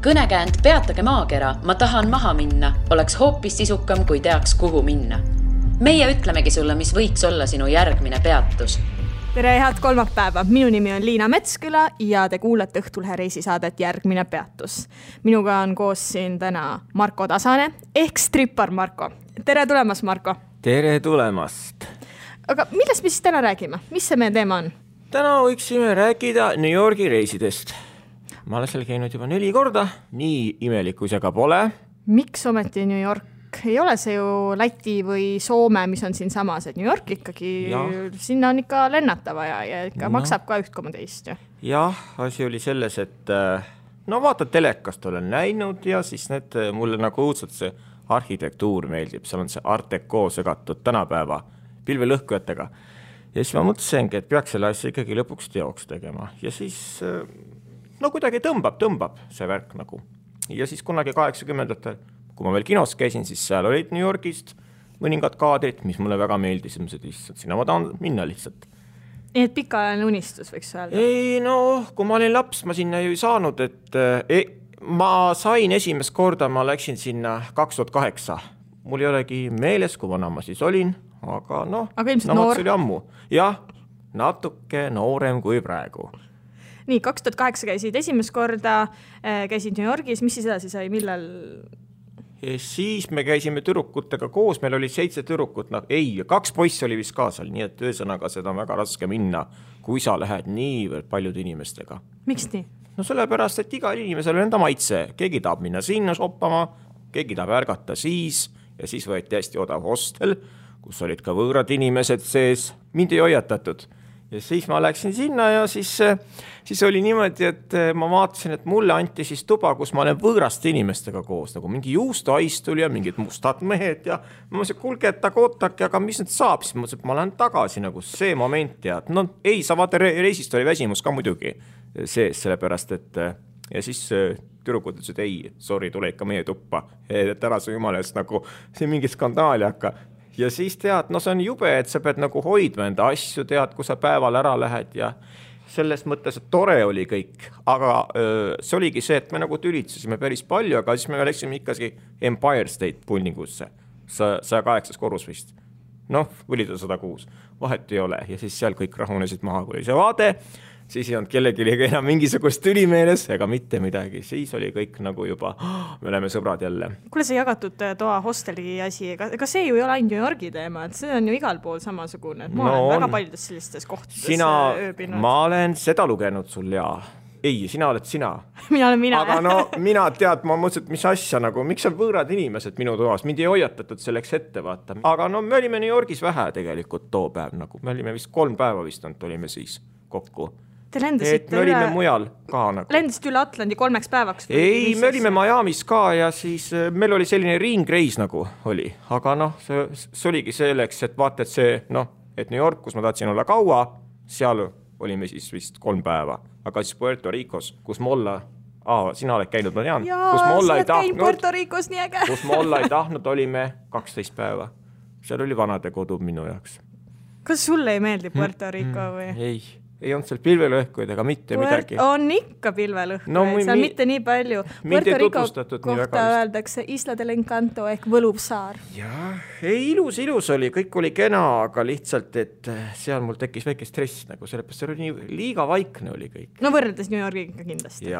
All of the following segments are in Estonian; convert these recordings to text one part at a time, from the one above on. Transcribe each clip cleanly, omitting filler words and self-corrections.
Kõnekäänd Peatage maakera, ma tahan maha minna, oleks hoopis sisukam, kui teaks, kuhu minna. Meie ütlemegi sulle, mis võiks olla sinu järgmine peatus. Tere, head kolmapäeva. Minu nimi on Liina Metsküla ja te kuulete Õhtulhe reisisaadet Järgmine peatus. Minuga on koos siin täna Marko Tasane ehk strippar Marko. Tere tulemast, Marko. Tere tulemast. Aga millest me siis täna räägime? Mis see meie teema on? Täna võiksime rääkida New Yorgi reisidest. Ma olen seal käinud juba 4 korda, nii imelikku see ka pole. Miks ometi New York? Ei ole see ju Läti või Soome, mis on siin samas, et New York ikkagi, sinna on ikka lennatava ja ikka maksab ka 1,2. Jah, asi oli selles, et vaata telekast olen näinud ja siis mulle nagu õudselt see arhitektuur meeldib, seal on see Art Deco segatud tänapäeva pilvelõhkujatega. Ja siis ma mõtlesengi, et peaks selle asja ikkagi lõpuks teoks tegema ja siis kuidagi tõmbab see värk nagu. Ja siis kunagi 80-ndatel, kui ma veel kinos käisin, siis seal olid New Yorgist mõningad kaadrid, mis mulle väga meeldis, lihtsalt sinna ma tahan minna lihtsalt. Nii et pikaajaline unistus võiks öelda? Ei, kui ma olin laps, ma sinna ju ei saanud, et ma sain esimest korda, ma läksin sinna 2008. Mul ei olegi meeles, kui vana ma siis olin, aga ilmselt noor. See oli ammu. Jah, natuke noorem kui praegu. Nii, 2008 käisid esimest korda, käisid New Yorgis, mis siis edasi sai, millal? Siis me käisime tüdrukutega koos, meil oli 7 tüdrukut, 2 poissi oli vist kaasal, nii et ühesõnaga seda on väga raske minna, kui sa lähed niivõrd paljude inimestega. Miks nii? Sellepärast, et iga inimesel on enda maitse, keegi tahab minna sinna shoppama, keegi tahab ärgata siis ja siis võeti hästi odav hostel, kus olid ka võõrad inimesed sees, mind ei hoiatatud. Ja siis ma läksin sinna ja siis oli niimoodi, et ma vaatasin, et mulle anti siis tuba, kus ma olen võõraste inimestega koos, nagu mingi juustoaistul ja mingid mustad mehed ja ma mõtlesin, kulge, et ootake, aga mis nüüd saab, siis mõtlesin, et ma lähen tagasi nagu see moment ja sa vaata reisist oli väsimus ka muidugi sees, sellepärast, et ja siis tüdrukud ütlesid, ei, sorry, tule ikka meie tuppa, et ära su jumala eest nagu see mingi skandaali hakka. Ja siis tead, see on jube, et sa pead nagu hoidma enda asju, tead, kui sa päeval ära lähed ja selles mõttes, et tore oli kõik, aga see oligi see, et me nagu tülitsesime päris palju, aga siis me läksime ikkagi Empire State Buildingusse, 108 korrus vist. Või 106, vahet ei ole ja siis seal kõik rahunesid maha, kui oli see vaade, siis ei olnud kellegi enam mingisugust tülimeeles ega mitte midagi, siis oli kõik nagu juba, me oleme sõbrad jälle. Kuule, see jagatud toa hosteli asi, ega see ju ei ole ainult New Yorgi teema, et see on ju igal pool samasugune, et ma olen väga paljudes sellistes kohtades ööbinud. Ma olen seda lugenud sul ja ei, sina oled sina. Mina olen mina. Aga mina tead, ma mõtlesin, et mis asja nagu, miks on võõrad inimesed minu toas, mind ei hoiatatud selleks ette vaata. Aga me olime New Yorgis vähe tegelikult too päev, nagu me olime vist 3 päeva vist olime siis kokku. Te lendasite me olime mujal ka nagu. Lendasite üle Atlandi 3 päevaks? Ei, me olime Miamis ka ja siis meil oli selline ringreis nagu oli. Aga see oligi selleks, et vaata, et see, et New York, kus ma tahtsin olla kaua, seal olime siis vist 3 päeva. Aga siis Puerto Ricos, kus ma olla, sina oled käinud, ma tean. Jaa, sa oled käinud Puerto Ricos, nii äge. Kus ma olla ei tahtnud, olime 12 päeva. Seal oli vanade kodu minu jaoks. Kas sulle ei meeldi Puerto Rico või? Ei olnud seal pilvelõhkuid ega mitte midagi. On ikka pilvelõhkuid, seal mitte nii palju. Puerto Rico kohta öeldakse Isla del Encanto ehk võluv saar. Jah, ilus oli, kõik oli kena, aga lihtsalt, et seal mul tekkis väike stress, nagu sellepärast see oli nii liiga vaikne oli kõik. Võrreldes New Yorgiga kindlasti.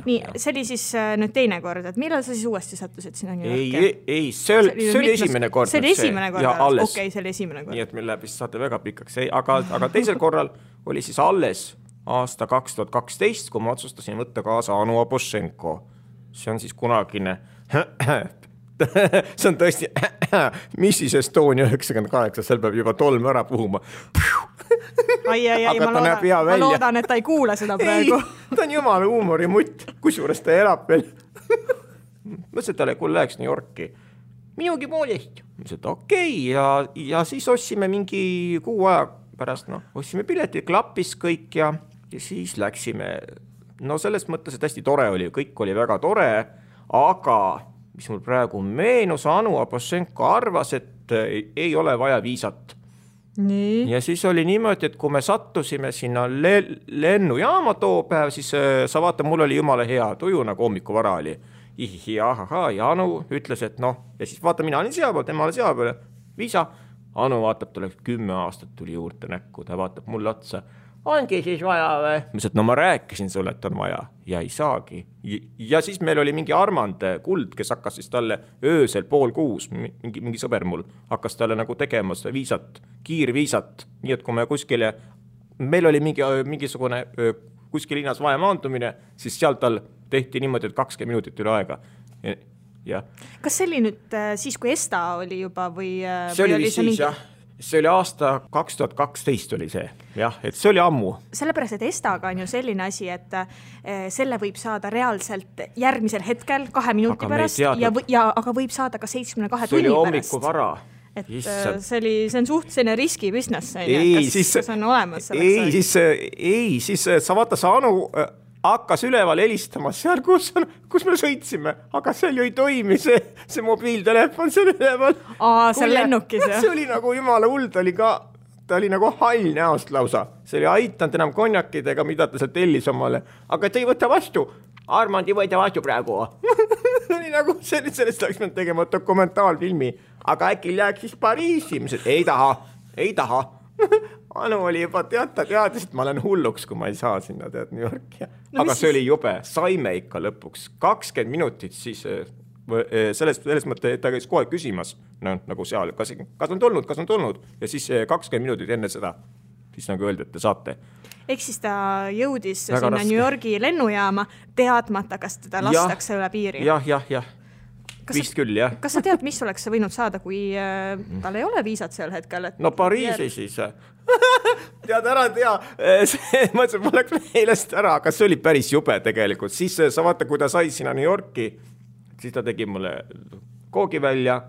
Nii, see oli siis nüüd teine kord, et millal sa siis uuesti sattusid sinna New Yorki? Ei, see oli esimene kord. See oli esimene kord, okei, see oli esimene kord. Nii, et meil läheb vist saate väga pikaks, aga teisel korral oli siis alles aasta 2012, kui ma otsustasin võtta kaasa Anu Abošenko. See on siis kunagine, see on tõesti Mrs. Estonia 98, seal peab juba tolm ära puhuma. Ma loodan, et ta ei kuule seda praegu. Ei, ta on jumala huumorimutt, kusjuures ta elab veel. Mõtlesin, et talle kui läheks New Yorki. Minugi poolest. Mõtlesin, et okei, ja siis ossime mingi 6 aja pärast, ossime piletid, klappis kõik ja siis läksime. Selles mõttes, et hästi tore oli, kõik oli väga tore, aga mis mul praegu meenus, Anu Abošenko arvas, et ei ole vaja viisat. Nii. Ja siis oli niimoodi, et kui me sattusime sinna lennujaama too päev, siis sa vaata, mul oli jumala hea tuju, nagu hommiku vara oli. Ja Anu ütles, et noh, ja siis vaata, mina olin seal peal, tema oli seal peal, Viisa. Anu vaatab, ta oleks 10 aastat tuli juurde näkku, ta vaatab mulle otsa. Ongi siis vaja või? Ma ütlesin, et no ma rääkisin sulle, et on vaja ja ei saagi. Ja siis meil oli mingi Armand Kuld, kes hakkas siis talle öösel 5:30, mingi sõber mul, hakkas talle nagu tegema seda viisat, kiirviisat, nii et kui me kuskile, meil oli mingisugune kuskil linnas vaja maandumine, siis seal tal tehti niimoodi, et 20 minutit üle aega. Ja. Kas see oli nüüd siis, kui ESTA oli juba või see oli siis, mingi... jah. See oli aasta 2012 oli see, jah, et see oli ammu. Sellepärast, et ESTA-ga on ju selline asi, et selle võib saada reaalselt järgmisel hetkel 2 minuti aga pärast, aga võib saada ka 72 tunni pärast. See oli hommiku vara. Et see on suhtline riski business, kas on olemas selleks? Siis sa vaata, sa Anu hakkas üleval helistama seal, kus me sõitsime, aga seal ju ei toimi see mobiiltelefon seal üleval. Seal lennukis, jah? See oli nagu jumala hull, ta oli nagu hall näost lausa. See oli aitanud enam konjakidega, mida ta seal tellis omale, aga ta ei võta vastu. Armand ei võta vastu praegu. Oli nagu sellest oleks me tegema dokumentaalfilmi, aga äkki läheks siis Pariisi. Ei taha. Anu oli juba teadis, et ma olen hulluks, kui ma ei saa sinna New Yorki. Aga see oli jube, saime ikka lõpuks 20 minutit, siis selles mõtte, et ta käis kohe küsimas, nagu seal, kas on tulnud, ja siis 20 minutit enne seda, siis nagu öeldi, et te saate. Ehk siis ta jõudis väga sinna raske. New Yorgi lennujaama teadmata, kas teda lastakse üle piiri. Jah. Vist küll, jah. Kas sa tead, mis oleks võinud saada, kui tal ei ole viisat sel hetkel? No Pariisi siis. Tead ära, mõtlesin, mul läks meelest ära, aga see oli päris jube tegelikult. Siis sa vaata, kui ta sai sinna New Yorki, siis ta tegi mulle koogi välja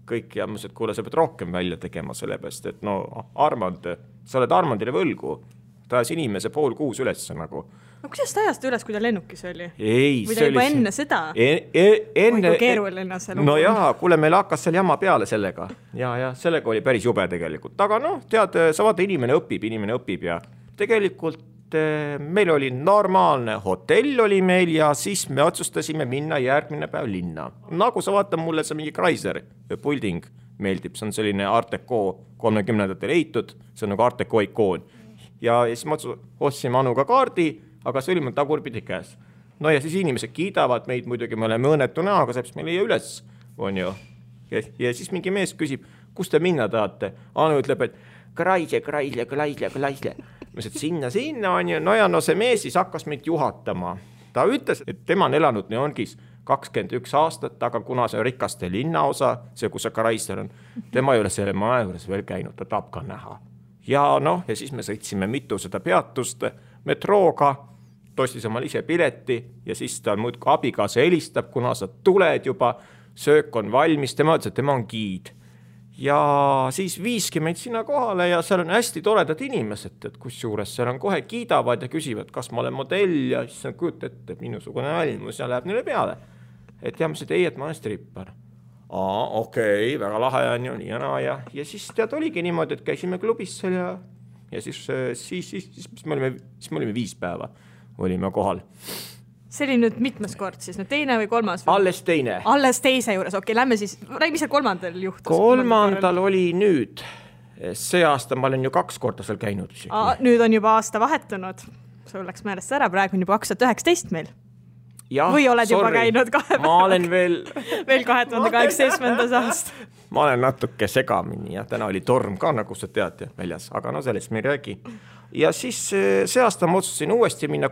kõik ja mõtlesin, et kuule, sa pead rohkem välja tegema sellepärast, et no Armand, sa oled Armandile võlgu. Ta ajas inimese 5:30 üles nagu. No kuidas ta ajast üles, kui ta lennukis oli? Ei, või ta juba enne seda? Enne... Kui keeruline see lugu. No jaa, kuule, meil hakkas seal jama peale sellega. Ja sellega oli päris jube tegelikult. Aga noh, tead, sa vaata, inimene õpib ja tegelikult meil oli normaalne hotell oli meil ja siis me otsustasime minna järgmine päev linna. Nagu sa vaata, mulle see mingi Chrysler building meeldib, see on selline Art Deco 30-ndatel eitud, see on nagu Art Deco ikoon. Ja siis ma ostsime Anuga kaardi, aga see oli mul tagurpidi käes. No ja siis inimesed kiidavad meid, muidugi me oleme õnnetu näoga, seepärast me leia üles, on ju. Ja siis mingi mees küsib, kus te minna tahate? Anu ütleb, et Chrysler. Ma ütlesin, sinna on ju. No ja no see mees siis hakkas meid juhatama. Ta ütles, et tema on elanud New Yorgis 21 aastat, aga kuna see on rikaste linnaosa, see kus see Chrysler on, tema ei ole selle maja juures veel käinud, ta tahab ka näha. Ja noh, ja siis me sõitsime mitu seda peatust metrooga, tostis omal ise pileti ja siis ta muud abikaasa helistab, kuna sa tuled juba, söök on valmis, tema ütles, et tema on giid. Ja siis viiski meid sinna kohale ja seal on hästi toredad inimesed, et kus juures seal on kohe kiidavad ja küsivad, kas ma olen modell ja siis on kujut ette minusugune almus ja läheb neile peale. Et ja ma ütlesin, et ma olen strippar. Okei, väga lahe on ju, nii ja siis tead oligi niimoodi, et käisime klubis seal ja siis me olime 5 päeva, olime kohal. See oli nüüd mitmes kord siis, nüüd teine või kolmas? Alles teine. Alles teise juures, okei, lähme siis, mis seal kolmandal juhtus? Kolmandal oli nüüd, see aasta ma olen ju 2 korda seal käinud. Nüüd on juba aasta vahetunud, sul läks meelest ära, praegu on juba 2019 meil. Ja, või oled juba käinud 2 päeva? Ma olen veel 2018. aasta. Ma olen natuke segamini ja täna oli torm ka, nagu sa tead väljas, aga no sellest me ei räägi. Ja siis see aasta ma otsustasin uuesti minna,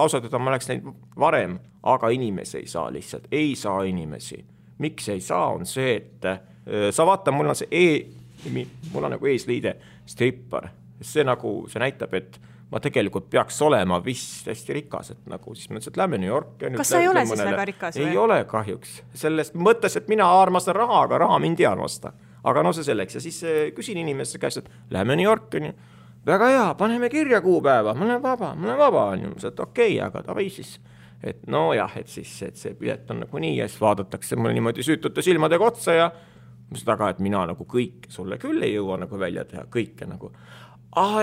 ausalt, ma läks neid varem, aga inimesi ei saa lihtsalt, ei saa inimesi. Miks ei saa, on see, et sa vaata, mul on nagu eesliide strippar. See näitab, et ma tegelikult peaks olema vist hästi rikas, et nagu siis mõtlesin, et lähme New Yorki. Kas sa ei ole siis väga rikas või? Ei ole kahjuks. Sellest mõttes, et mina armastan raha, aga raha mind ei armasta. Aga no see selleks. Ja siis küsin inimeste käest, et lähme New Yorki. Väga hea, paneme kirja kuupäeva. Ma olen vaba. Et okei, aga davai siis. Et no jah, et siis et see pilet on nagu nii ja siis vaadatakse mulle niimoodi süütute silmadega otsa ja taga, et mina nagu kõike sulle küll ei jõua nagu välja teha, kõike nagu.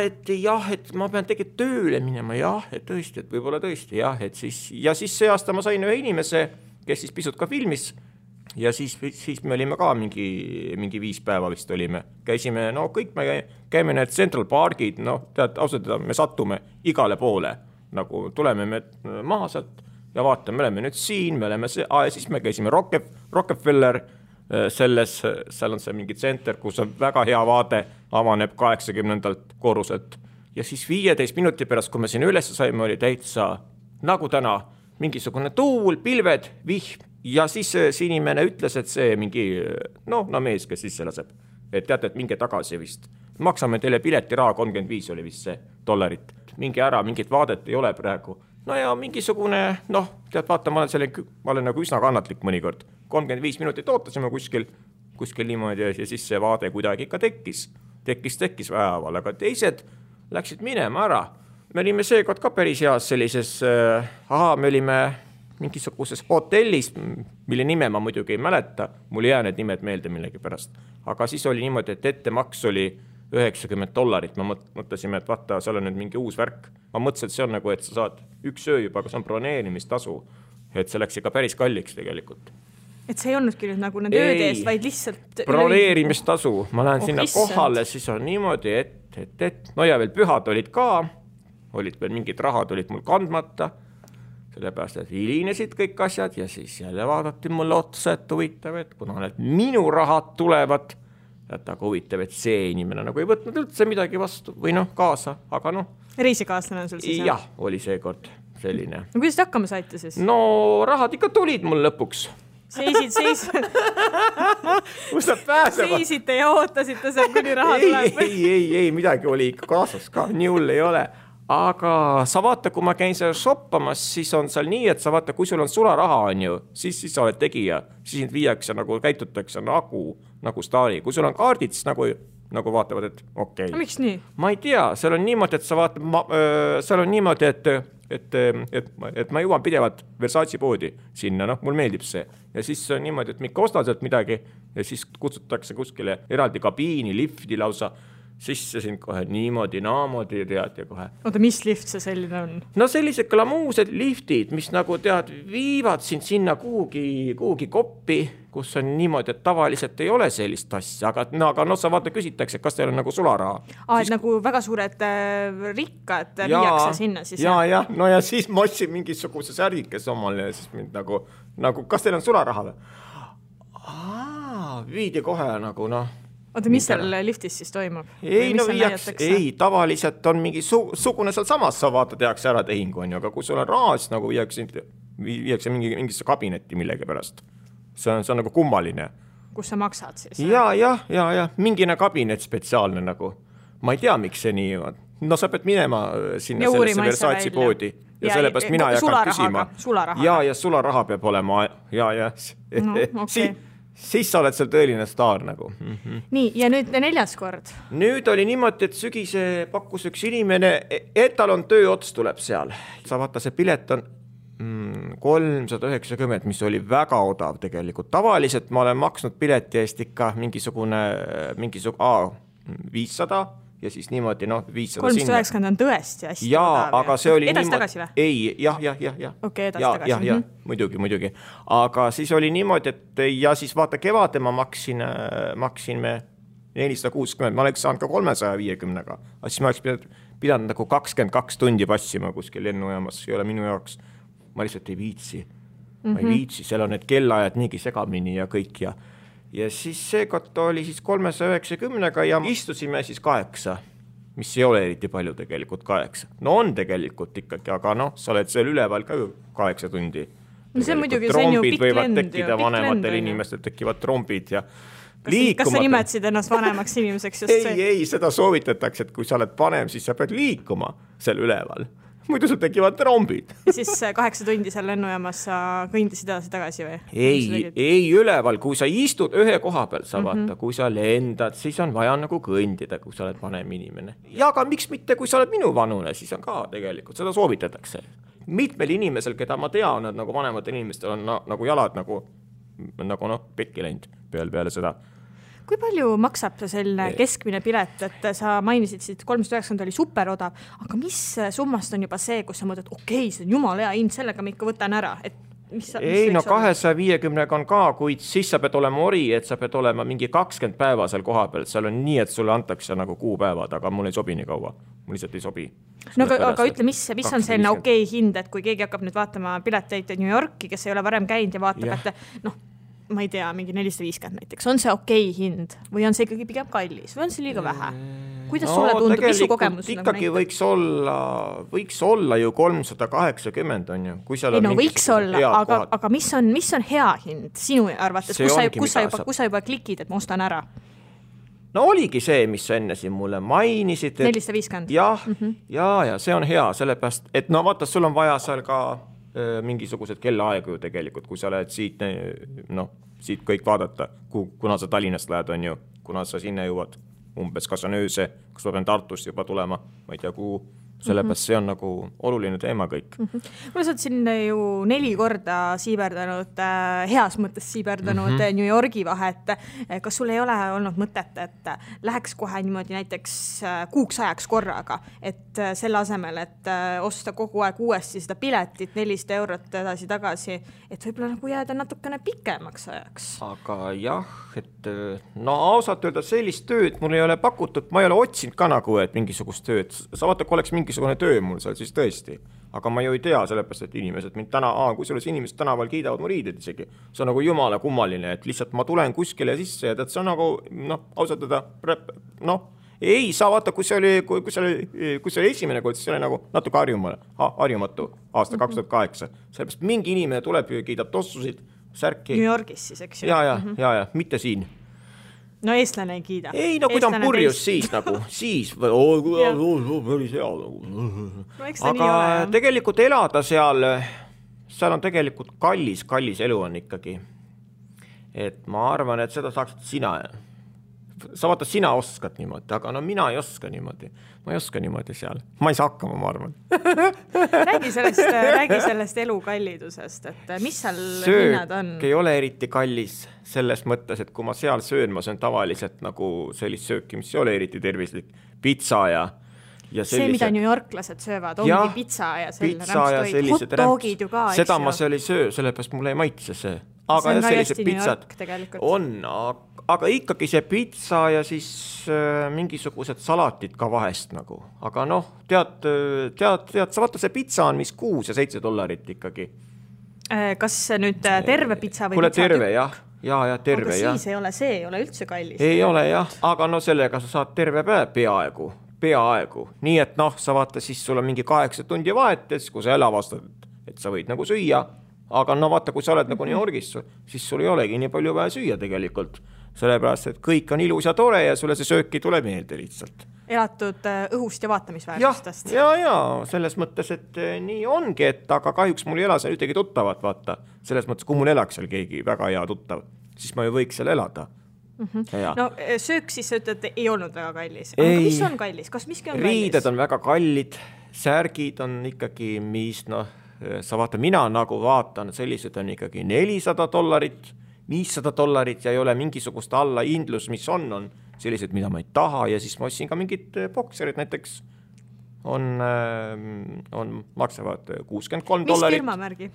Et jah, et ma pean tegelikult tööle minema, jah, et tõesti, et võib-olla tõesti, jah, et siis, ja siis see aasta ma sain ühe inimese, kes siis pisut ka filmis ja siis me olime ka mingi 5 päeva vist olime. Käisime, no kõik me käime need Central Parkid, no tead, ausalt, me sattume igale poole, nagu tuleme me maha sealt ja vaatame, me oleme nüüd siin, me oleme ja siis me käisime Rockefeller, seal on see mingi tsenter, kus on väga hea vaade, avaneb 80. korruselt ja siis 15 minuti pärast, kui me siin üles saime, oli täitsa nagu täna mingisugune tuul, pilved, vihm ja siis see inimene ütles, et see mingi mees, kes sisse laseb, et teate, et minge tagasi vist, maksame teile piletiraha, 35 oli vist see $, mingi ära, mingit vaadet ei ole praegu. No ja mingisugune, tead, vaata, ma olen nagu üsna kannatlik mõnikord. 35 minutit ootasime kuskil niimoodi ja siis see vaade kuidagi ikka tekkis väeval, aga teised läksid minema ära. Me olime seekord ka päris heas sellises, me olime mingisuguses hotellis, mille nime ma muidugi ei mäleta, mul ei jää need nimed meelde millegi pärast, aga siis oli niimoodi, et ettemaks oli $90, ma mõtlesime, et vaata, seal on nüüd mingi uus värk. Ma mõtlesin, et see on nagu, et sa saad üks öö juba, aga see on broneerimistasu, et see läks ikka päris kalliks tegelikult. Et see ei olnudki nüüd nagu need ööde eest, vaid lihtsalt broneerimistasu, ma lähen sinna kohale, siis on niimoodi, et no ja veel pühad olid ka, olid veel mingid rahad olid mul kandmata, sellepärast, et hilinesid kõik asjad ja siis jälle vaadati mulle otsa, et huvitav, et kuna need minu rahad tulevad, et aga huvitav, et see inimene nagu ei võtnud üldse midagi vastu või kaasa, aga reisikaaslane on sul siis? Jah, oli seekord selline. No kuidas te hakkama saite siis? No rahad ikka tulid mul lõpuks. Kus nad pääsevad? Seisite ja ootasite seal, kuni raha tuleb? Ei, midagi oli ikka kaasas ka, nii hull ei ole. Aga sa vaata, kui ma käin seal shoppamas, siis on seal nii, et sa vaata, kui sul on sularaha on ju, siis sa oled tegija, siis sind viiakse nagu käitutakse nagu staari. Kui sul on kaardid, siis nagu vaatavad, et okei. Miks nii? Ma ei tea, seal on niimoodi, et sa vaatad, seal on niimoodi, et ma jõuan pidevalt Versace poodi sinna, mul meeldib see. Ja siis on niimoodi, et ma ikka ostan sealt midagi ja siis kutsutakse kuskile eraldi kabiini, lifti lausa, sisse sind kohe niimoodi, naamoodi tead ja kohe. Oota, mis lift see selline on? No sellised glamuused liftid, mis nagu tead, viivad sind sinna kuhugi koppi, kus on niimoodi, et tavaliselt ei ole sellist asja, aga sa vaata küsitakse, kas teil on nagu sularaha. Et nagu väga suured rikkad viiakse sinna siis? Ja, no ja siis ma ostsin mingisuguse särgikes omale ja siis mind nagu kas teil on sularaha või? Viidi kohe nagu Oota, mis seal liftis siis toimub? Ei, tavaliselt on mingi sugune seal samas, sa vaata, tehakse ära tehingu, aga kui sul on raha, siis nagu viiakse mingisse kabinetti millegi pärast. See on nagu kummaline. Kus sa maksad siis? Ja, mingine kabinet spetsiaalne nagu. Ma ei tea, miks see nii on. No sa pead minema sinna sellesse Versace poodi. Ja sellepärast mina ei hakanud küsima. Ja sularaha peab olema. Ja. Siis sa oled seal tõeline staar nagu. Nii, ja nüüd 4. kord? Nüüd oli niimoodi, et sügise pakkus üks inimene, et tal on tööots tuleb seal. Sa vaata, see pilet on 390, mis oli väga odav tegelikult. Tavaliselt ma olen maksnud pileti eest ikka mingisugune 500 ja siis niimoodi 500 390 on tõesti hästi odav. Aga see oli edasi-tagasi või? Ei, jah. Okei, edasi-tagasi. Ja, muidugi. Aga siis oli niimoodi, et ja siis vaata kevade ma maksin me 460, ma oleks saanud ka 350-ga. Aga siis ma oleks pidanud nagu 22 tundi passima kuskil lennujaamas, ei ole minu jaoks. Ma lihtsalt ei viitsi. Ma ei viitsi, seal on need kellaajad niigi segamini ja kõik ja siis seekord oli siis 390-ga ja istusime siis 8, mis ei ole eriti palju tegelikult 8. No on tegelikult ikkagi, aga sa oled seal üleval ka 8 tundi. No see muidugi, see on ju pikk lend. Trombid võivad tekkida, vanematel inimestel tekivad trombid ja liikumata. Kas sa nimetsid ennast vanemaks inimeseks just see? Ei, seda soovitatakse, et kui sa oled vanem, siis sa pead liikuma seal üleval. Muidu sul tekivad trombid. Ja siis 8 tundi seal lennujaamas sa kõndisid edasi tagasi või? Ei üleval, kui sa istud ühe koha peal, sa vaata, kui sa lendad, siis on vaja nagu kõndida, kui sa oled vanem inimene. Ja aga miks mitte, kui sa oled minu vanune, siis on ka tegelikult, seda soovitatakse. Mitmel inimesel, keda ma tean, nagu vanematel inimestel on nagu jalad nagu pekki läinud peale seda. Kui palju maksab selline keskmine pilet, et sa mainisid siit 390 oli superodav, aga mis summast on juba see, kus sa mõtled, okei, see on jumala hea hind, sellega ma ikka võtan ära, et ei, no 250 on ka, kuid siis sa pead olema ori, et sa pead olema mingi 20 päeva seal koha peal, seal on nii, et sulle antakse nagu kuupäevad, aga mul ei sobi nii kaua, mul lihtsalt ei sobi. No aga ütle, mis on selline okei hind, et kui keegi hakkab nüüd vaatama pileteid New Yorki, kes ei ole varem käinud ja vaatab, et ma ei tea, mingi 450 näiteks, on see okei hind või on see ikkagi pigem kallis või on see liiga vähe? Kuidas sulle tundub, mis su kogemus? Ikkagi võiks olla ju 380 on ju. Kui seal ei, no võiks olla, aga mis on hea hind sinu arvates? Kus sa juba klikid, et ma ostan ära? No oligi see, mis sa enne siin mulle mainisid. 450? Ja see on hea, sellepärast, et no vaata, sul on vaja seal ka mingisugused kellaaegu ju tegelikult, kui sa lähed siit kõik vaadata, kuna sa Tallinnast lähed, on ju, kuna sa sinna jõuad umbes, kas on ööse, kas ma pean Tartust juba tulema, ma ei tea kuhu, sellepärast see on nagu oluline teema kõik. Kuna sa oled siin ju 4 korda siiberdanud, heas mõttes siiberdanud New Yorgi vahet, kas sul ei ole olnud mõtet, et läheks kohe niimoodi näiteks kuuks ajaks korraga, et selle asemel, et osta kogu aeg uuesti seda piletit 400 eurot edasi-tagasi, et võib-olla nagu jääda natukene pikemaks ajaks? Aga jah, et no ausalt öelda sellist tööd mul ei ole pakutud, ma ei ole otsinud ka nagu, et mingisugust tööd, sa vaata, kui oleks mingisugune töö mul seal, siis tõesti. Aga ma ju ei tea, sellepärast, et inimesed mind kui selles inimesed tänaval kiidavad mu riided isegi. See on nagu jumala kummaline, et lihtsalt ma tulen kuskile sisse ja see on nagu, ausalt öelda, ei saa vaata, kui see oli esimene kord, siis see oli nagu natuke harjumatu aasta 2008. Sellepärast mingi inimene tuleb ja kiidab tossusid, särki. New Yorgis siis, eks ju? Ja, mitte siin. No eestlane ei kiida. Ei, no kui ta on purjus siis nagu, siis päris hea nagu. Aga tegelikult elada seal on tegelikult kallis elu on ikkagi. Et ma arvan, et seda saaksid sina. Sa vaata, sina oskad niimoodi, aga no mina ei oska niimoodi. Ma ei oska niimoodi seal. Ma ei saa hakkama, ma arvan. Räägi sellest elu kallidusest, et mis seal hinnad on? Söök ei ole eriti kallis selles mõttes, et kui ma seal söön, ma söön tavaliselt nagu sellist sööki, mis ei ole eriti tervislik. Pitsa ja see, mida New Yorklased söövad, ongi pitsa ja rämpstoid. Hot dogid ju ka, eks ju. Seda ma seal ei söö, sellepärast mulle ei maitse see. Aga sellised pitsad on, aga ikkagi see pitsa ja siis mingisugused salatid ka vahest nagu. Aga noh, tead, sa vaata see pitsa on mis $6 ja $7 ikkagi. Kas nüüd terve pitsa või Kuule, terve, jah. Ja terve, aga siis ei ole üldse kallis. Ei ole, jah, aga no sellega sa saad terve päev peaaegu. Nii et sa vaata, siis sul on mingi 8 tundi vahet, kui sa jälle avastad, et sa võid nagu süüa. Aga no vaata, kui sa oled nagu New Yorgis, siis sul ei olegi nii palju vaja süüa tegelikult. Sellepärast, et kõik on ilus ja tore ja sulle see sööki tuleb meelde lihtsalt. Elatud õhust ja vaatamisväärtustest. Ja, selles mõttes, et nii ongi, et aga kahjuks mul ei ela seal ühtegi tuttavat, vaata. Selles mõttes, kui mul elaks seal keegi väga hea tuttav, siis ma ju võiks seal elada. No söök siis sa ütled, ei olnud väga kallis. Aga mis on kallis? Kas miski on kallis? Riided on väga kallid, särgid on ikkagi, mis sa vaata, mina nagu vaatan, sellised on ikkagi $400, $500 ja ei ole mingisugust alla hindlus, mis on sellised, mida ma ei taha ja siis ma ostsin ka mingid bokserid näiteks maksavad $63. Mis firmamärgi?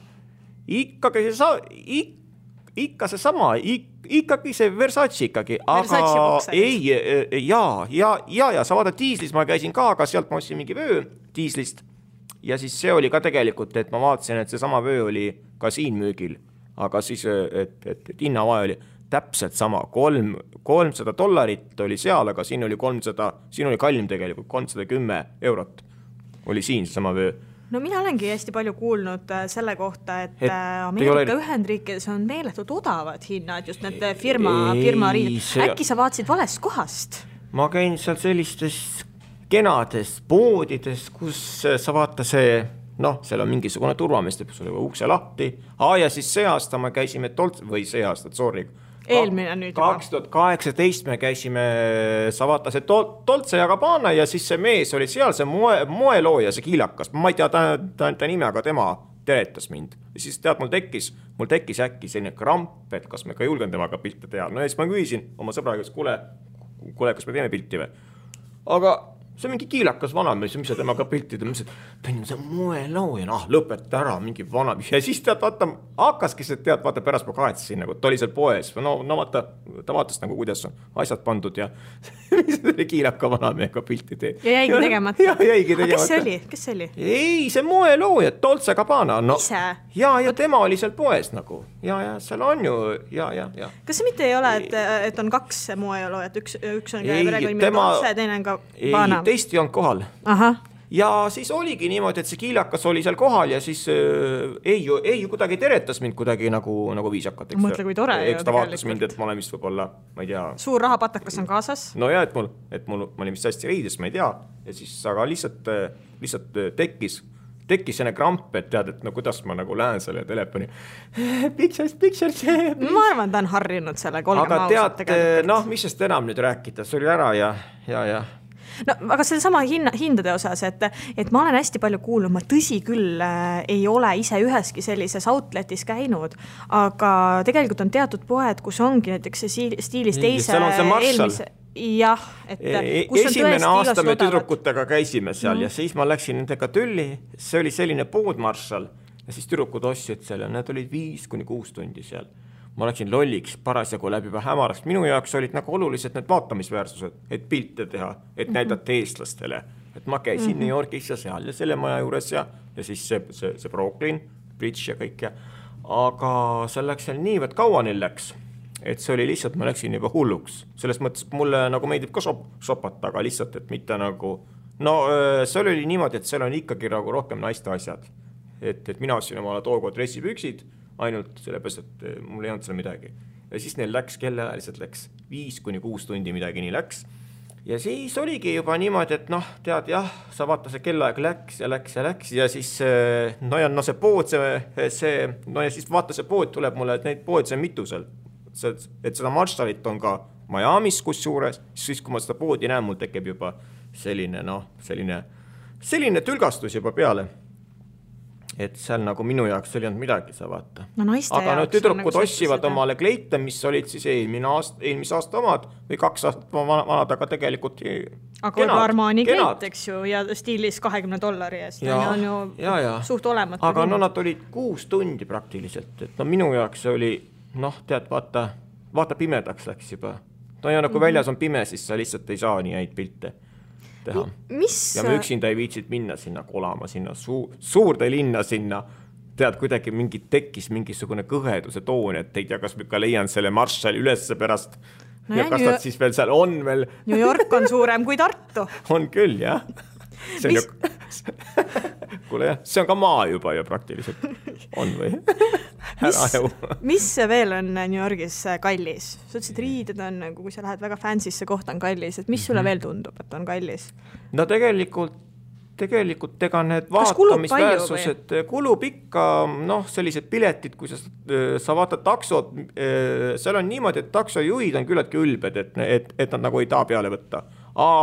Ikka see sama, ikkagi see Versace ikkagi. Versace bokserid? Ja sa vaata diislis ma käisin ka, aga sealt ma ostsin mingi vöö diislist. Ja siis see oli ka tegelikult, et ma vaatasin, et see sama vöö oli ka siin müügil, aga siis, et hinnavahe oli täpselt sama, $300 oli seal, aga siin oli kallim tegelikult, €310 oli siin see sama vöö. No mina olengi hästi palju kuulnud selle kohta, et Ameerika Ühendriikides on meeletult odavad hinnad, just need firma riided. Äkki sa vaatasid valest kohast? Ma käin seal sellistes kenades poodides, kus sa vaata see, seal on mingisugune turvameeste, kus oli ukse lahti. Ja siis see aasta me käisime eelmine nüüd juba. 2018 me käisime, sa vaata see Dolce & Gabbana ja siis see mees oli seal, see moelooja, see kiilakas. Ma ei tea ta nime, aga tema teretas mind. Ja siis tead, mul tekkis äkki selline kramp, et kas me ka julgen temaga pilte teha. No ja siis ma küsisin oma sõbraga, kuule, kas me teeme pilti või? Aga see on mingi kiilakas vanamees, mis sa temaga piltid, ma ütlesin, et see on moelooja, lõpeta ära, mingi vanamees. Ja siis tead, vaata, hakkaski see, tead, vaata, pärast ma kahetsin, nagu, ta oli seal poes. No vaata, ta vaatas nagu, kuidas on asjad pandud ja mis oli kiilaka vanamehega pilti teed. Ja jäigi tegemata. Ja jäigi tegemata. Aga kes see oli? Ei, see moelooja, Dolce Gabbana. No, ise? Ja tema oli seal poes nagu. Ja seal on ju, ja. Kas see mitte ei ole, et on 2 moeloojat, üks on perekonnimi Dolce, teine on Gabbana? Teist ei olnud kohal. Aha. Ja siis oligi niimoodi, et see kiilakas oli seal kohal ja siis ei ju kuidagi teretas mind kuidagi nagu viisakat. Mõtle, kui tore. Eks ta vaatas mind, et ma olen vist võib-olla, ma ei tea. Suur rahapatakas on kaasas. No ja, et ma olin vist hästi riides, ma ei tea. Ja siis aga lihtsalt tekkis selline kramp, et tead, et no kuidas ma nagu lähen selle telefoni. Pictures. Ma arvan, ta on harjunud selle kolgema ausalt tegelikult. Aga tead, mis sest enam nüüd rääkida, see oli ära ja. No, aga selle sama hindade osas, et ma olen hästi palju kuulnud, ma tõsi küll ei ole ise üheski sellises outletis käinud, aga tegelikult on teatud poed, kus ongi näiteks see stiilis teise eelmise. Jah, et kus on esimene aasta me tüdrukutega käisime seal ja siis ma läksin nendega tülli, see oli selline pood Marshall ja siis tüdrukud ostsid seal ja need olid 5-6 tundi seal. Ma läksin lolliks parasjagu läbi juba hämarast. Minu jaoks olid nagu olulised need vaatamisväärsused, et pilte teha, et näidata eestlastele. Et ma käisin New Yorkis ja seal ja selle maja juures ja siis see Brooklyn, Bridge ja kõik ja. Aga see läks seal niivõrd kaua neil läks, et see oli lihtsalt, ma läksin juba hulluks. Selles mõttes mulle nagu meeldib ka sopata, aga lihtsalt, et mitte nagu. No see oli niimoodi, et seal on ikkagi nagu rohkem naiste asjad. Et mina ostsin omale tookord dressipüksid, ainult sellepärast, et mul ei olnud seal midagi. Ja siis neil läks, kellaajaliselt läks 5-6 tundi midagi nii läks. Ja siis oligi juba niimoodi, et tead, jah, sa vaata see kellaaeg läks ja siis see pood, ja siis vaata see pood tuleb mulle, et neid pood see on mitu seal. Et seda Marshallit on ka Miamis kusjuures, siis kui ma seda poodi näen, mul tekib juba selline tülgastus juba peale. Et seal nagu minu jaoks ei olnud midagi, sa vaata. Aga tüdrukud ossivad omale kleite, mis olid siis eelmise aasta omad või 2 aastat vanad, aga tegelikult aga Armani kleit, eks ju, ja stiilis $20 eest. On ju suht olematu. Aga nad olid 6 tundi praktiliselt. Et minu jaoks see oli, tead, vaata pimedaks läks juba. Ja kui väljas on pime, siis sa lihtsalt ei saa nii häid pilte teha. Ja me üksinda ei viitsid minna sinna kolama, sinna suurde linna sinna. Tead, kuidagi tekkis mingisugune kõheduse toon, et ei tea, kas ma ka leian selle Marshalli ülesse pärast. Ja kas nad siis veel seal on veel. New York on suurem kui Tartu. On küll, jah. Kuule jah, see on ka maa juba ju praktiliselt. On või? Mis veel on New Yorgis kallis? Sa ütlesid, riided on, kui sa lähed väga fansisse kohta on kallis, et mis sulle veel tundub, et on kallis? No tegelikult ega need vaatamisväärsused kulub ikka, sellised piletid, kui sa vaatad taksod, seal on niimoodi, et taksojuhid on küllaltki ülbed, et nad nagu ei taha peale võtta.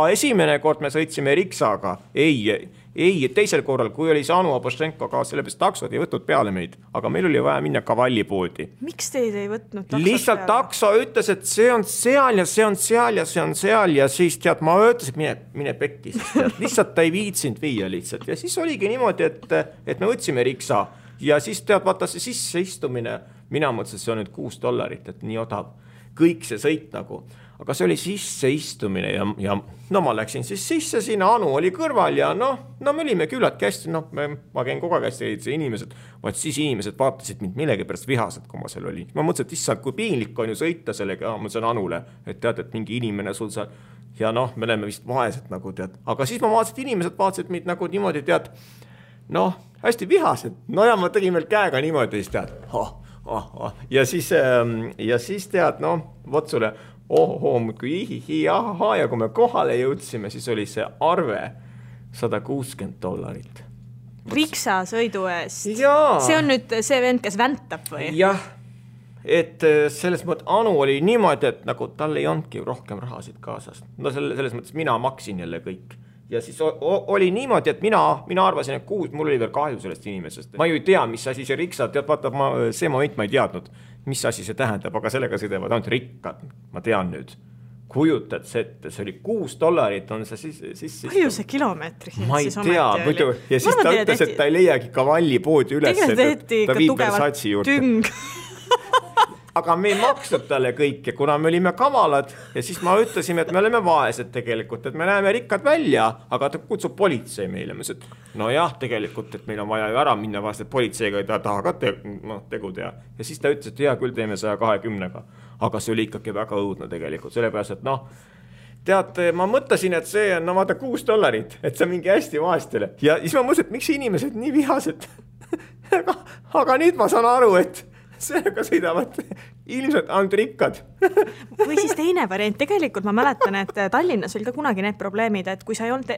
Esimene kord me sõitsime Riksaga, ei, teisel korral, kui oli see Anu Abošenko ka, sellepärast taksod ei võtnud peale meid, aga meil oli vaja minna Kavallipoodi. Miks teid ei võtnud taksod lihtsalt peale? Takso ütles, et see on seal ja see on seal ja see on seal ja siis tead, ma ütlesin, mine pekki, lihtsalt ta ei viitsinud viia lihtsalt ja siis oligi niimoodi, et me võtsime Riksa ja siis tead, vaata see sisseistumine, mina mõtlesin, see on nüüd $6, et nii odav, kõik see sõit nagu. Aga see oli sisseistumine ja ma läksin siis sisse, siin Anu oli kõrval ja me olime küllaltki hästi, ma käin kogu aeg hästi inimesed, vaid siis inimesed vaatasid mind millegi pärast vihased, kui ma seal olin. Ma mõtlesin, et issand, kui piinlik on ju sõita sellega, ma mõtlesin Anule, et tead, et mingi inimene sul seal ja me oleme vist vaesed nagu tead. Aga siis ma vaatasin, et inimesed vaatasid mind nagu niimoodi tead, hästi vihased. Ja ma tegin veel käega niimoodi, siis tead, ja siis tead, vot sulle muudkui ja kui me kohale jõudsime, siis oli see arve $160. Riksa sõidu eest. Jaa. See on nüüd see vend, kes väntab või? Jah, et selles mõttes Anu oli niimoodi, et nagu tal ei olnudki rohkem rahasid kaasas. Selles mõttes mina maksin jälle kõik. ja siis oli niimoodi, et mina arvasin, et mul oli veel kahju sellest inimesest. Ma ju ei tea, mis asi see riksa, tead, vaata, see moment ma ei teadnud, mis asi see tähendab, aga sellega sõidavad ainult rikkad, ma tean nüüd. Kujutad see ette, see oli $6 on see siis palju see kilomeetri ma ei tea, muidu ja siis ta ütles, et ta ei leiagi Cavalli poodi üles, ta viib Versace juurde. Aga me ei maksnud talle kõike, kuna me olime kavalad ja siis ma ütlesime, et me oleme vaesed tegelikult, et me näeme rikkad välja, aga ta kutsub politsei meile. Ma ütlesin, et no jah, tegelikult, et meil on vaja ju ära minna vast, et politseiga ei taha ka tegu teha. Ja siis ta ütles, et hea, küll teeme 120-ga. Aga see oli ikkagi väga õudne tegelikult, sellepärast, et noh, tead, ma mõtlesin, et see on, no vaata, $6, et see on mingi hästi vaestele. Ja siis ma mõtlesin, et miks inimesed nii vihased? aga nüüd ma saan aru, et sellega sõidavad ilmselt ainult rikkad. Või siis teine variant, tegelikult ma mäletan, et Tallinnas oli ka kunagi need probleemid, et kui sa ei olnud,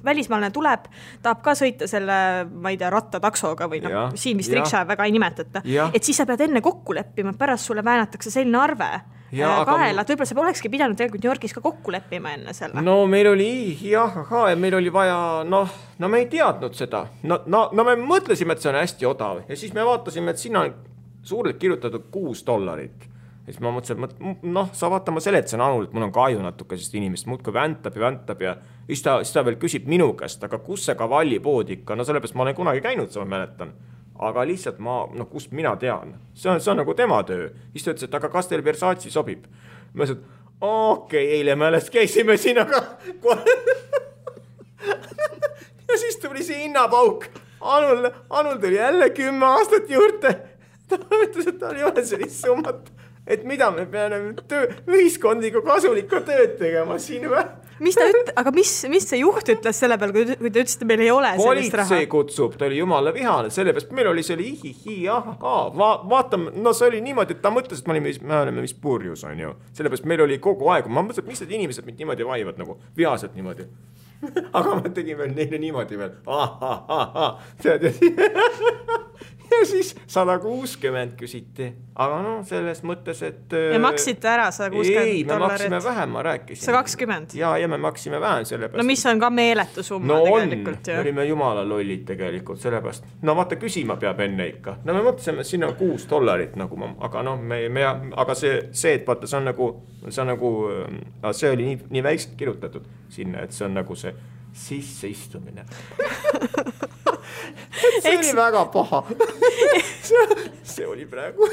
välismaalane tuleb, tahab ka sõita selle, ma ei tea, rattataksoga või siin vist riksa väga ei nimetata, et siis sa pead enne kokku leppima, pärast sulle väänatakse selline arve kaela, et võib-olla sa olekski pidanud tegelikult New Yorgis ka kokku leppima enne selle. No meil oli, meil oli vaja, no me ei teadnud seda. No me mõtlesime, et see on hästi odav ja siis me vaatasime, et siin on suurelt kirjutatud $6. Ja siis ma mõtlesin, et sa vaata, ma seletasin Anul, et mul on kahju natuke sest inimest, muudkui väntab ja siis ta veel küsib minu käest, aga kus see Cavalli pood ikka, no sellepärast ma olen kunagi käinud, sa mäletan. Aga lihtsalt kust mina tean, see on nagu tema töö. Siis ta ütles, et aga kas teil Versace sobib? Ma ütlesin, et okei, eile me alles käisime siin, aga ja siis tuli see hinnapauk. Anul tuli jälle 10 aastat juurde. Ta ütles, et tal ei ole sellist summat, et mida me peame ühiskondliku kasulikku tööd tegema siin või? Aga mis see juht ütles selle peal, kui te ütlesite, meil ei ole sellist raha? Politsei kutsub, ta oli jumala vihane, sellepärast meil oli see vaatame, no see oli niimoodi, et ta mõtles, et me oleme mis purjus, on ju. Sellepärast meil oli kogu aeg, ma mõtlesin, et mis need inimesed mind niimoodi vaivad, nagu vihaselt niimoodi. Aga ma tegin veel neile niimoodi veel. Ja siis 160 küsiti, aga selles mõttes, et ja maksite ära $160? Ei, me maksime vähem, ma rääkisin. 120? Ja me maksime vähem sellepärast. No mis on ka meeletu summa tegelikult. Me olime jumala lollid tegelikult sellepärast. No vaata, küsima peab enne ikka. No me mõtlesime, et siin on $6 nagu, aga aga see, et vaata, see oli nii väikselt kirjutatud sinna, et see on nagu see sisseistumine. See oli väga paha. See oli praegu.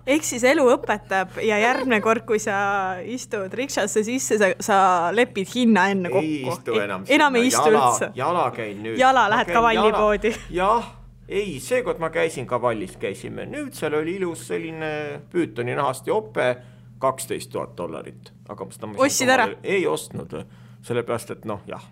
Ehk siis elu õpetab ja järgmine kord, kui sa istud riksasse sisse, sa lepid hinna enne kokku. Ei istu enam. Enam ei istu üldse. Jala käin nüüd. Jala lähed Cavalli poodi. Jah, ei, seekord ma käisin Cavallis, käisime. Nüüd seal oli ilus selline püütoni nahast jope, $12,000. Ostsid ära? Ei ostnud, sellepärast, et jah.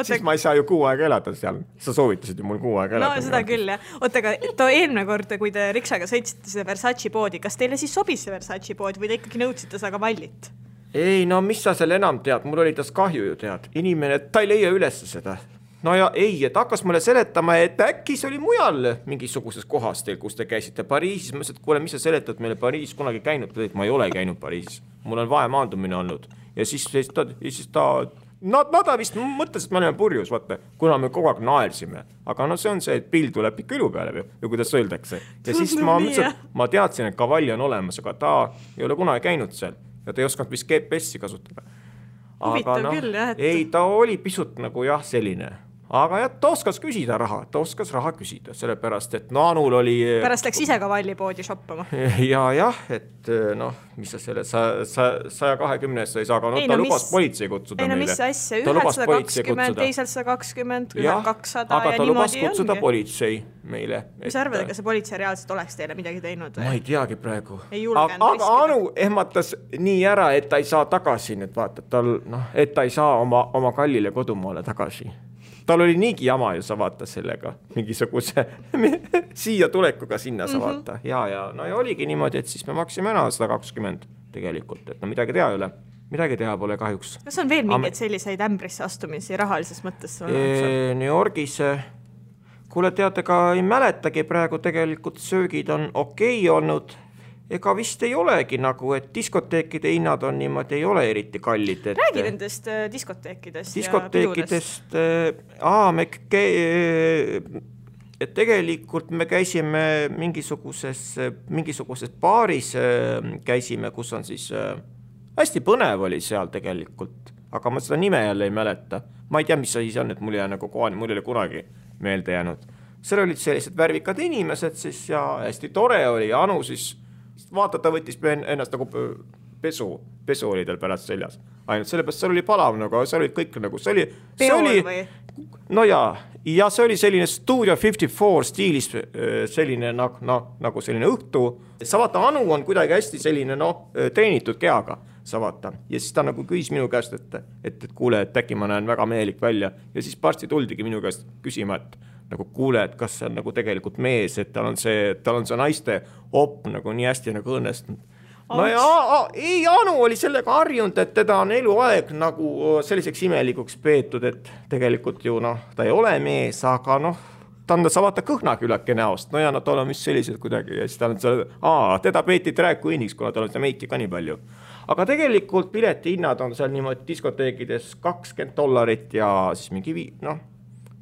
Siis ma ei saa ju 6 aega elada seal. Sa soovitasid ju mul 6 aega elada. No seda küll, jah. Aga eelmine kord, kui te riksaga sõitsite seda Versace poodi, kas teile siis sobis see Versace pood või te ikkagi nõudsite seda Cavallit? Ei, no mis sa seal enam tead? Mul oli tas kahju ju tead. Inimene, ta ei leia üles seda. No ja ei, et hakkas mulle seletama, et äkki see oli mujal mingisuguses kohas teil, kus te käisite Pariisis. Ma ütlesin, et kuule, mis sa seletad meile Pariisis kunagi käinud? Ma ei ole käinud Pariisis. Mul on vahemaandumine olnud. Ja siis ta Nad vist mõtles, et me oleme purjus, vaata, kuna me kogu aeg naersime. Aga see on see, et pill tuleb ikka ilu peale, või kuidas öeldakse. Ja siis ma teadsin, et Cavalli on olemas, aga ta ei ole kunagi käinud seal. Ja ta ei osanud vist GPS-i kasutada. Huvitav küll, jah. Ei, ta oli pisut nagu selline. Aga ta oskas küsida raha, küsida, sellepärast, et Anul oli... Pärast läks ise Cavalli poodi shoppama. Jah, et mis sa selle 120-st ei saa, aga ta lubas politsei kutsuda meile. Ei, mis asja, ühed 120, teisel 120, ühed 200 aga ta lubas kutsuda politsei meile. Mis arvad, ega see politsei reaalselt oleks teile midagi teinud? Ma ei teagi praegu. Aga Anu ehmatas nii ära, et ta ei saa tagasi, et ta ei saa oma kallile kodumaale tagasi. Tal oli niigi jama ju sa vaata sellega, mingisuguse siia tulekuga sinna sa vaata. Ja oligi niimoodi, et siis me maksime ära 120 tegelikult, et midagi teha ei ole. Midagi teha pole kahjuks. Kas on veel mingeid selliseid ämbrisse astumisi rahalises mõttes? New Yorgis, kuule teate, ka ei mäletagi praegu tegelikult söögid on okei olnud. ega vist ei olegi nagu, et diskoteekide hinnad on niimoodi, ei ole eriti kallid. Räägi nendest diskoteekidest diskoteekidest, et tegelikult me käisime mingisuguses baaris käisime, kus on siis hästi põnev oli seal tegelikult, aga ma seda nime jälle ei mäleta. Ma ei tea, mis see on, et mul ei ole kunagi meelde jäänud. Seal olid sellised värvikad inimesed siis ja hästi tore oli ja Anu siis vaata, ta võttis ennast nagu pesu oli tal pärast seljas. Ainult sellepärast seal oli palav, aga seal olid kõik nagu, see oli no ja see oli selline Studio 54 stiilis selline nagu selline õhtu. Sa vaata, Anu on kuidagi hästi selline treenitud kehaga, sa vaata. Ja siis ta nagu küsis minu käest, et kuule, et äkki ma näen väga mehelik välja. Ja siis parsti tuldigi minu käest küsima, et nagu kuule, et kas see on nagu tegelikult mees, et tal on see naiste op nagu nii hästi nagu õnnestunud. No ja Anu oli sellega harjunud, et teda on eluaeg nagu selliseks imelikuks peetud, et tegelikult ju ta ei ole mees, aga ta on sa vaata kõhnakülake näost, no ja tal on vist sellised kuidagi ja siis ta on teda peeti drag queeniks, kuna tal on see meiki ka nii palju. Aga tegelikult pileti hinnad on seal niimoodi diskoteekides $20 ja siis mingi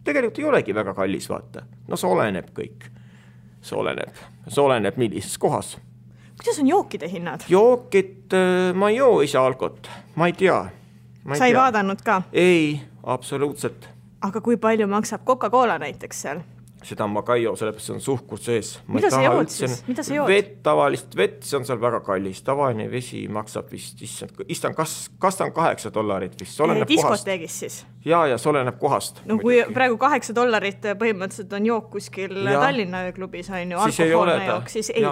tegelikult ei olegi väga kallis, vaata. See oleneb kõik. See oleneb millises kohas. Kuidas on jookide hinnad? Jookid, ma ei joo ise alkot. Ma ei tea. Sa ei vaadanud ka? Ei, absoluutselt. Aga kui palju maksab Coca-Cola näiteks seal? Seda ma ka ei joo, sellepärast see on suhkur sees. Mida sa jood siis? Mida sa jood? Tavalist vett, see on seal väga kallis. Tavaline vesi maksab vist, kas ta on $8 vist? Diskoteegis siis? Ja see oleneb kohast. No kui praegu $8 põhimõtteliselt on jook kuskil Tallinna ööklubis, on ju alkohoolne jook, siis ei,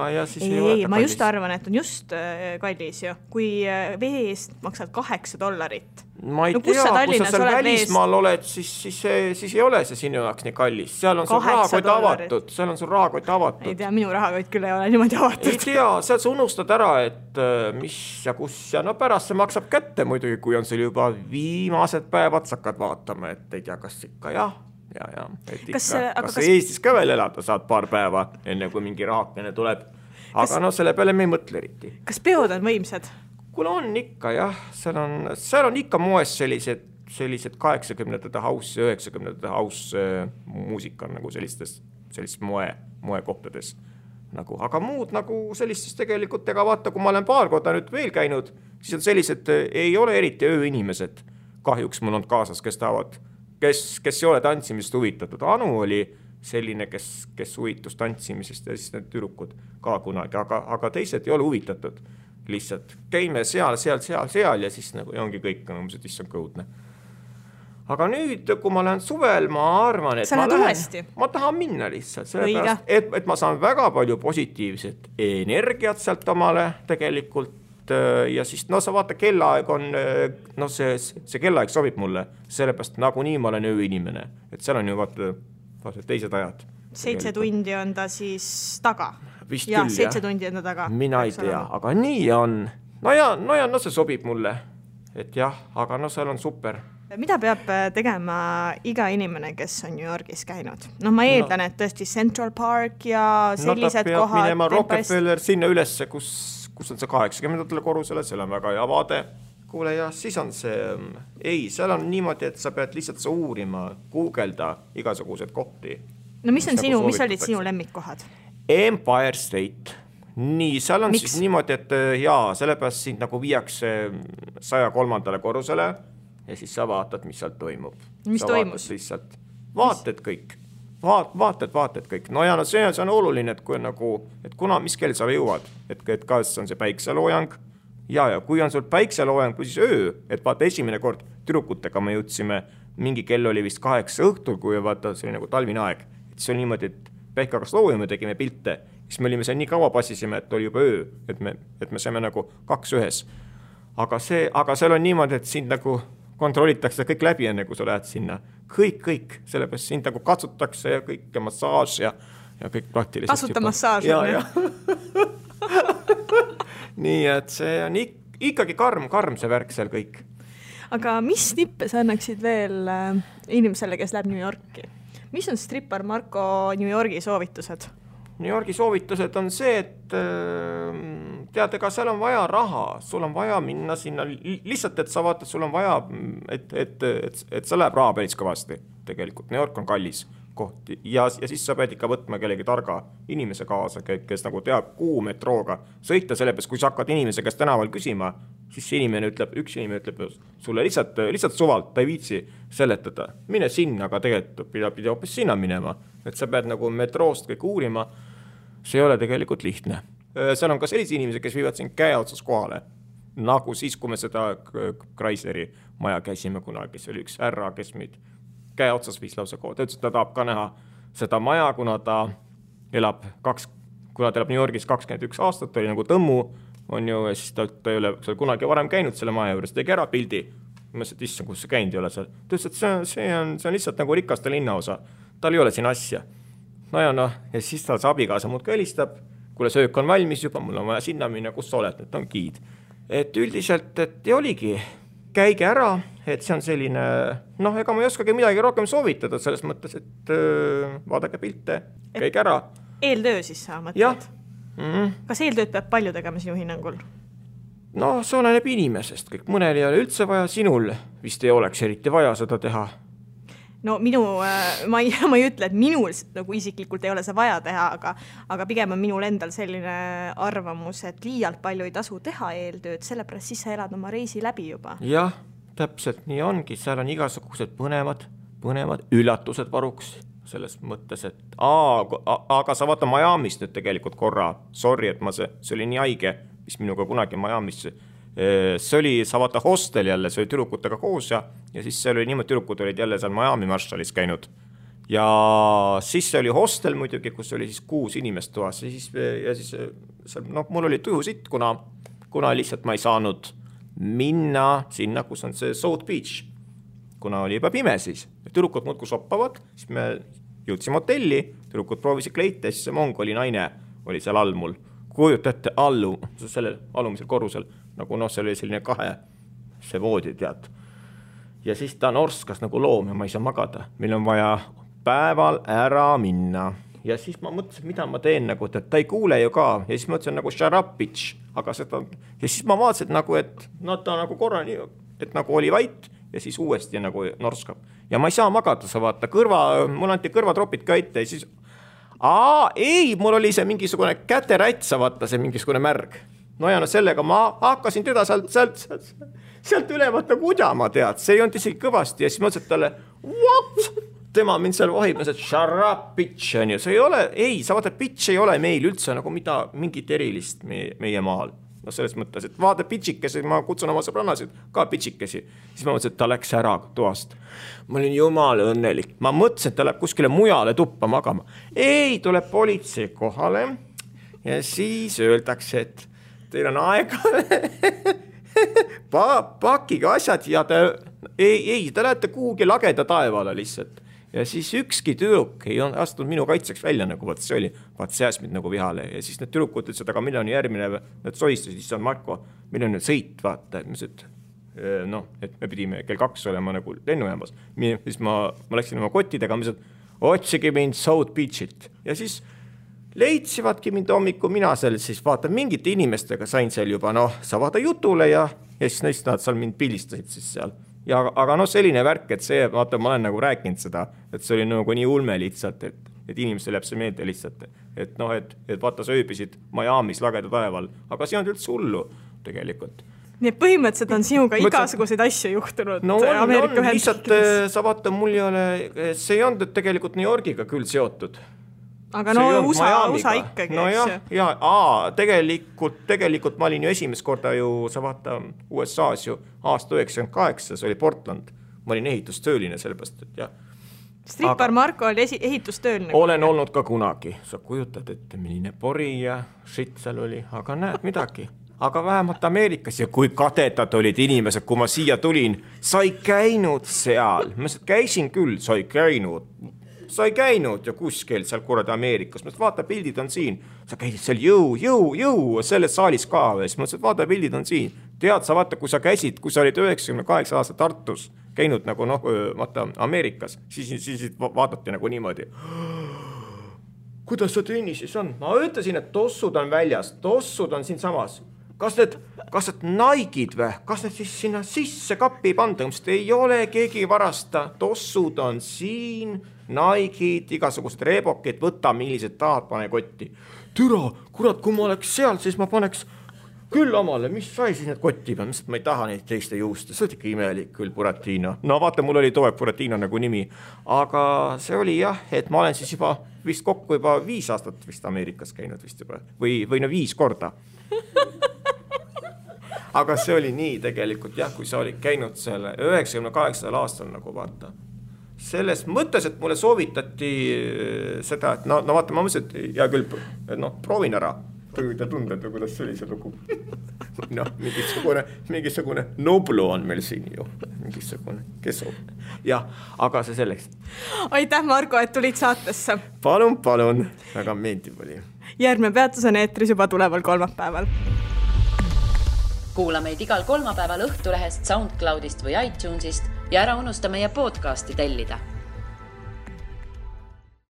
ma just arvan, et on just kallis ju. Kui vee eest maksad $8. Ma ei tea, kui sa seal välismaal oled, siis ei ole see sinu jaoks nii kallis. Seal on sul rahakott avatud. Ei tea, minu rahakott küll ei ole niimoodi avatud. Ei tea, seal sa unustad ära, et mis ja kus ja pärast see maksab kätte muidugi, kui on sul juba viimased päevad, sa hakkad vaatama, et ei tea, kas ikka Kas Eestis ka veel elada saad paar päeva, enne kui mingi rahakene tuleb. Aga selle peale me ei mõtle eriti. Kas peod on võimsad? Kuule on ikka jah, seal on ikka moes sellised 80-ndate house ja 90-ndate house muusika nagu sellistes moekohtades. Aga muud nagu sellistes tegelikult, ega vaata, kui ma olen paar korda nüüd veel käinud, siis on sellised, ei ole eriti ööinimesed. Kahjuks mul on kaasas, kes ei ole tantsimisest huvitatud. Anu oli selline, kes huvitus tantsimisest ja siis need tüdrukud ka kunagi, aga teised ei ole huvitatud. Lihtsalt käime seal ja siis nagu ongi kõik, mis on kõudne. Aga nüüd, kui ma lähen suvel, ma arvan, et ma tahan minna lihtsalt, sellepärast, et ma saan väga palju positiivset energiat sealt omale tegelikult ja siis sa vaata, kellaaeg on, see kellaaeg sobib mulle, sellepärast nagunii ma olen ööinimene, et seal on ju vaata teised ajad. 7 tundi on ta siis taga. Vist ja, küll, 7 tundi enda taga. Mina ei tea, aga nii on. See sobib mulle. Et jah, aga seal on super. Mida peab tegema iga inimene, kes on New Yorgis käinud? Ma eeldan, et tõesti Central Park ja sellised kohad. Ta peab minema Rockefeller sinna ülesse, kus on see 80. korrusele, seal on väga hea vaade. Kuule, ja siis on see, seal on niimoodi, et sa pead lihtsalt uurima, googelda igasugused kohti. No mis olid sinu lemmikkohad? Empire State. Nii, seal on siis niimoodi, et sellepärast sind nagu viiakse 103. korrusele ja siis sa vaatad, mis seal toimub. Mis toimus? Vaated kõik. Vaated kõik. No ja see on oluline, et mis kell sa jõuad, et kas on see päikseloojang ja kui on sul päikseloojang või siis öö, et vaata esimene kord tüdrukutega me jõudsime, mingi kell oli vist 8 õhtul, kui vaata see oli nagu talvine aeg, et see on niimoodi, et päike hakkas loojama, tegime pilte, siis me olime seal nii kaua passisime, et oli juba öö, et me saime nagu 2 ühes. Aga seal on niimoodi, et sind nagu kontrollitakse kõik läbi enne, kui sa lähed sinna. Kõik, sellepärast sind nagu katsutakse ja kõik ja massaaž ja kõik praktiliselt. Tasuta massaaž. Ja. Nii, et see on ikkagi karm see värk seal kõik. Aga mis tippe sa annaksid veel inimesele, kes läheb New Yorki? Mis on strippar Marko New Yorgi soovitused? New Yorgi soovitused on see, et tead, ega seal on vaja raha, sul on vaja minna sinna, lihtsalt, et sa vaatad, sul on vaja, et sa läheb raha päris kõvasti tegelikult, New York on kallis koht ja siis sa pead ikka võtma kellegi targa inimese kaasa, kes nagu teab kuhu metrooga sõita, sellepärast kui sa hakkad inimese käest tänaval küsima, siis üks inimene ütleb sulle lihtsalt suvalt, ta ei viitsi seletada, mine sinna, aga tegelikult pidi hoopis sinna minema, et sa pead nagu metroost kõik uurima, see ei ole tegelikult lihtne. Seal on ka sellised inimesed, kes viivad siin käe otsas kohale, nagu siis, kui me seda Chrysleri maja käisime kunagi, see oli üks härra, kes meid käe otsas viis lausa kood. Ta ütles, et ta tahab ka näha seda maja, kuna ta elab New Yorgis 21 aastat, oli nagu tõmmu, on ju, ja siis ta ei ole kunagi varem käinud selle maja juures, tegi ära pildi. Ma mõtlesin, et issand, kus see käinud ei ole seal. Ta ütles, et see on lihtsalt nagu rikaste linnaosa. Tal ei ole siin asja. Ja siis tal see abikaasa muud ka helistab, kuule söök on valmis juba, mul on vaja sinna minna, kus sa oled, et on giid. Et üldiselt, et ei oligi, käige ära, et see on selline, ega ma ei oskagi midagi rohkem soovitada selles mõttes, et vaadake pilte, käige ära. Eeltöö siis sa mõtled? Kas eeltööd peab palju tegema sinu hinnangul? See oleneb inimesest kõik. Mõnel ei ole üldse vaja, sinul vist ei oleks eriti vaja seda teha. Ma ei ütle, et minul nagu isiklikult ei ole see vaja teha, aga pigem on minul endal selline arvamus, et liialt palju ei tasu teha eeltööd, sellepärast siis sa elad oma reisi läbi juba. Jah, täpselt nii ongi, seal on igasugused põnevad üllatused varuks selles mõttes, et aga sa vaata Miami's nüüd tegelikult korra, sorry, et see oli nii haige, mis minuga kunagi Miami's see oli, sa vaata hostel jälle, see oli tüdrukutega koos ja siis see oli niimoodi, tüdrukud olid jälle seal Miami Marshallis käinud ja siis see oli hostel muidugi, kus oli siis 6 inimest toas ja siis mul oli tuju sitt, kuna lihtsalt ma ei saanud minna sinna, kus on see South Beach, kuna oli juba pime siis. Tüdrukud muudku soppavad, siis me jõudsime hotelli, tüdrukud proovisid kleite, siis see mongoli naine oli seal all mul. Kujutate sellel alumisel korrusel, nagu see oli selline 2 see voodi, tead. Ja siis ta norskas nagu loom ja ma ei saa magada. Meil on vaja päeval ära minna. Ja siis ma mõtlesin, mida ma teen, nagu, et ta ei kuule ju ka. Ja siis mõtlesin nagu shut up, bitch. Aga seda, ja siis ma vaatasin, nagu, et ta nagu korra nii, et nagu oli vait ja siis uuesti nagu norskab. Ja ma ei saa magada, sa vaata, mul anti kõrvatropid ka ette ja siis ei, mul oli see mingisugune käterätt, sa vaata, see mingisugune märg. Sellega ma hakkasin teda sealt ülevat nagu udjama, tead. See ei olnud isegi kõvasti ja siis mõtlesin talle, what? Tema mind seal vahib, et shut up, bitch, on ju. See ei ole, sa vaata, bitch ei ole meil üldse nagu mingit erilist meie maal. Selles mõttes, et vaata pitšikesi, ma kutsun oma sõbrannasid ka pitšikesi. Siis ma mõtlesin, et ta läks ära toast. Ma olin jumal õnnelik. Ma mõtlesin, et ta läheb kuskile mujale tuppa magama. Ei, tuleb politsei kohale ja siis öeldakse, et teil on aega pakige asjad ja ta lähete kuhugi lageda taevale lihtsalt. Ja siis ükski tüdruk ei astunud minu kaitseks välja, nagu vaat see oli, vaat see ajas mind nagu vihale. Ja siis need tüdrukud ütlesid, aga millal on järgmine, need soistasid, siis on Marko, millal on nüüd sõit, vaata, et me pidime kell 2 olema nagu lennujaamas. Siis ma läksin oma kottidega, otsige mind South Beachit. Ja siis leidsivadki mind hommiku, mina seal siis vaata, mingite inimestega sain seal juba, sa vaata jutule ja siis neist nad seal mind pildistasid siis seal. Aga selline värk, et see, vaata, ma olen nagu rääkinud seda, et see oli nagu nii ulme lihtsalt, et inimestel jääb see meelde lihtsalt, et vaata, sa ööbisid Miami's lageda taeval, aga see on üldse hullu tegelikult. Nii põhimõtteliselt on sinuga igasuguseid asju juhtunud Ameerika Ühendriikides. Sa vaata, mul ei ole, see ei olnud tegelikult New Yorgiga küll seotud. Aga USA ikkagi, tegelikult ma olin ju esimest korda ju, sa vaata USA-s ju aasta 98, see oli Portland. Ma olin ehitustööline sellepärast, et jah. Strippar Marko oli ehitustööline. Olen olnud ka kunagi. Sa kujutad, et milline pori ja shit seal oli, aga näed midagi. Aga vähemalt Ameerikas ja kui kadetad olid inimesed, kui ma siia tulin, sa ei käinud seal. Ma käisin küll, sa ei käinud ja kuskil seal kuradi Ameerikas. Ma vaata, pildid on siin. Sa käisid seal jõu, selles saalis ka. Ma vaata, pildid on siin. Tead, sa vaata, kui sa käisid, kui sa olid 98 aasta Tartus käinud nagu vaata Ameerikas, siis vaadati nagu niimoodi. kuidas see tennis siis on? Ma ütlesin, et tossud on väljas, tossud on siin samas. Kas need Nike'id või? Kas need siis sinna sisse kappi panda? Ei ole, keegi varasta. Tossud on siin, Nike'id, igasugused reebokid, võta millised tahad, pane kotti. Türa, kurat, kui ma oleks seal, siis ma paneks küll omale, mis sai siis need kotti peal, mis ma ei taha neid teiste juusta, see oli ikka imelik küll, Buratino. No vaata, mul oli toeg Buratino nagu nimi, aga see oli jah, et ma olen siis juba vist kokku juba 5 aastat vist Ameerikas käinud vist juba või 5 korda. Aga see oli nii tegelikult jah, kui sa olid käinud selle 98. aastal nagu vaata. Selles mõttes, et mulle soovitati seda, et no vaata, ma mõtlesin, et hea küll, proovin ära. Te tundete, kuidas see oli see lugu. Mingisugune Noblu on meil siin ju. Mingisugune, kes on? Jah, aga see selleks. Aitäh, Marko, et tulid saatesse. Palun, väga meeldib oli. Järgmine peatus on eetris juba tuleval kolmapäeval. Kuula meid igal kolmapäeval Õhtulehest, SoundCloudist või iTunesist ja ära unusta meie podcasti tellida.